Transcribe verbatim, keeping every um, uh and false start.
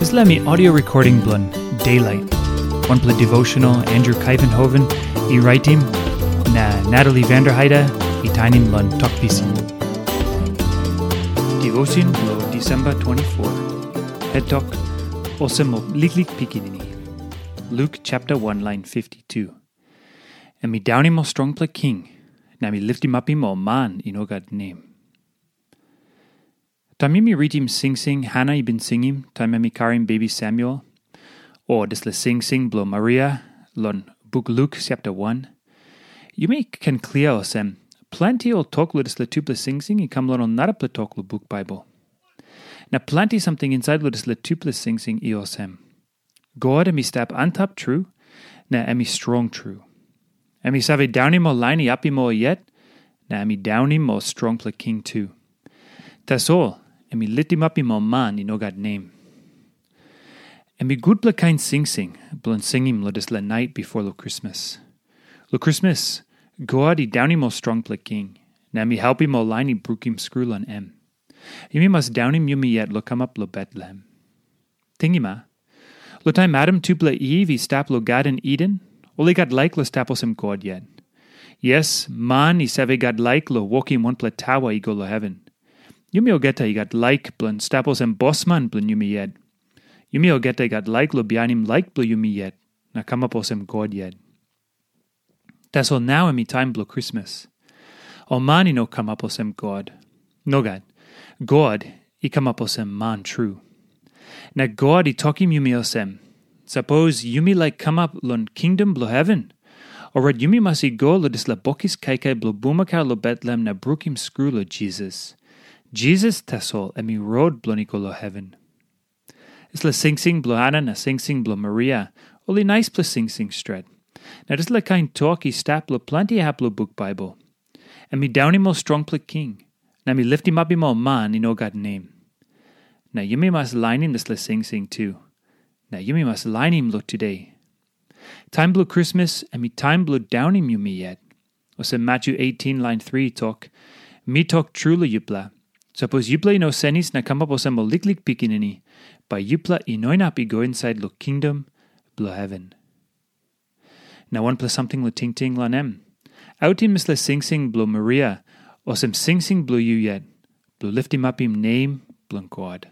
Dispela mi audio recording bilong Daylight, wanpela devotional Andrew Kaivenhoven i raitim, na Natalie Vanderheide i tainim long Tok Pisin. Devotion bilong Disemba twenty-four. Het tok, Olsem ol liklik pikinini. Luk chapter one, lain fifty-two. Em i daunim ol strongpela king, na em i liftimapim ol man i no gat nem. Taim yumi ritim singsing Hana i bin singim taim em i karim bebi Samuel, o dispela singsing bilong Maria long buk Luk chapter one, yumi ken klia olsem, planti ol tok long dispela tupela singsing i kam long ol narapela tok long buk Baibel. Na planti samting insait long dispela tupela singsing i olsem, God em i stap antap tru, na em i strong tru. Em i save daunim ol lain i apim ol yet, na em i daunim ol strongpela king tu. Tasol em i litimapim ol man i no gat nem. Em i gutpela kain singsing bilong singim long dispela nait bipo long Krismas. Long Krismas, God i daunim ol strongpela king, na em i helpim ol lain i brukim skru long em. Yumi mas daunim yumi yet long kamap long Betlehem. Tingim a, long taim Adam tupela Iv i stap long Garden Iden, ol i gat laik long stap olsem God yet. Yes, man i save gat laik long wokim wanpela taua i go long heven. Yumi olgeta i gat laik bilong stap olsem bosman bilong yumi yet. Yumi olgeta i gat laik long bihainim laik bilong yumi yet, na kamap olsem God yet. Tasol nau em i taim bilong Krismas. Ol man i no kamap olsem God. Nogat. God i kamap olsem man tru. Na God i tokim yumi olsem, sapos yumi laik kamap long kingdom bilong heven, orait yumi mas i go long dispela bokis kaikai bilong bulmakau long Betlehem na brukim skru long Jisas. Jisas tasol em i rot bilong i go long heven. Dispela singsing bilong Hana na singsing bilong Maria, ol i naispela singsing stret. Na dispela kain tok i stap long planti hap long buk Baibel. Em i daunim ol strongpela king, na em i liftimapim ol man i no gat nem. Na yumi mas lainim dispela singsing tu. Na yumi mas lainim long tude. Taim bilong Krismas em i taim bilong daunim yumi yet. Olsem Matyu eighteen lain three i tok, mi tok tru long yupela, sapos yupela i no senis na kamap olsem ol liklik pikinini, bai yupela i no inap i go insait long kingdom bilong heven. Na wanpela samting long tingting long em. Autim dispela singsing bilong Maria, olsem singsing bilong yu yet, bilong liftimapim nem bilong God.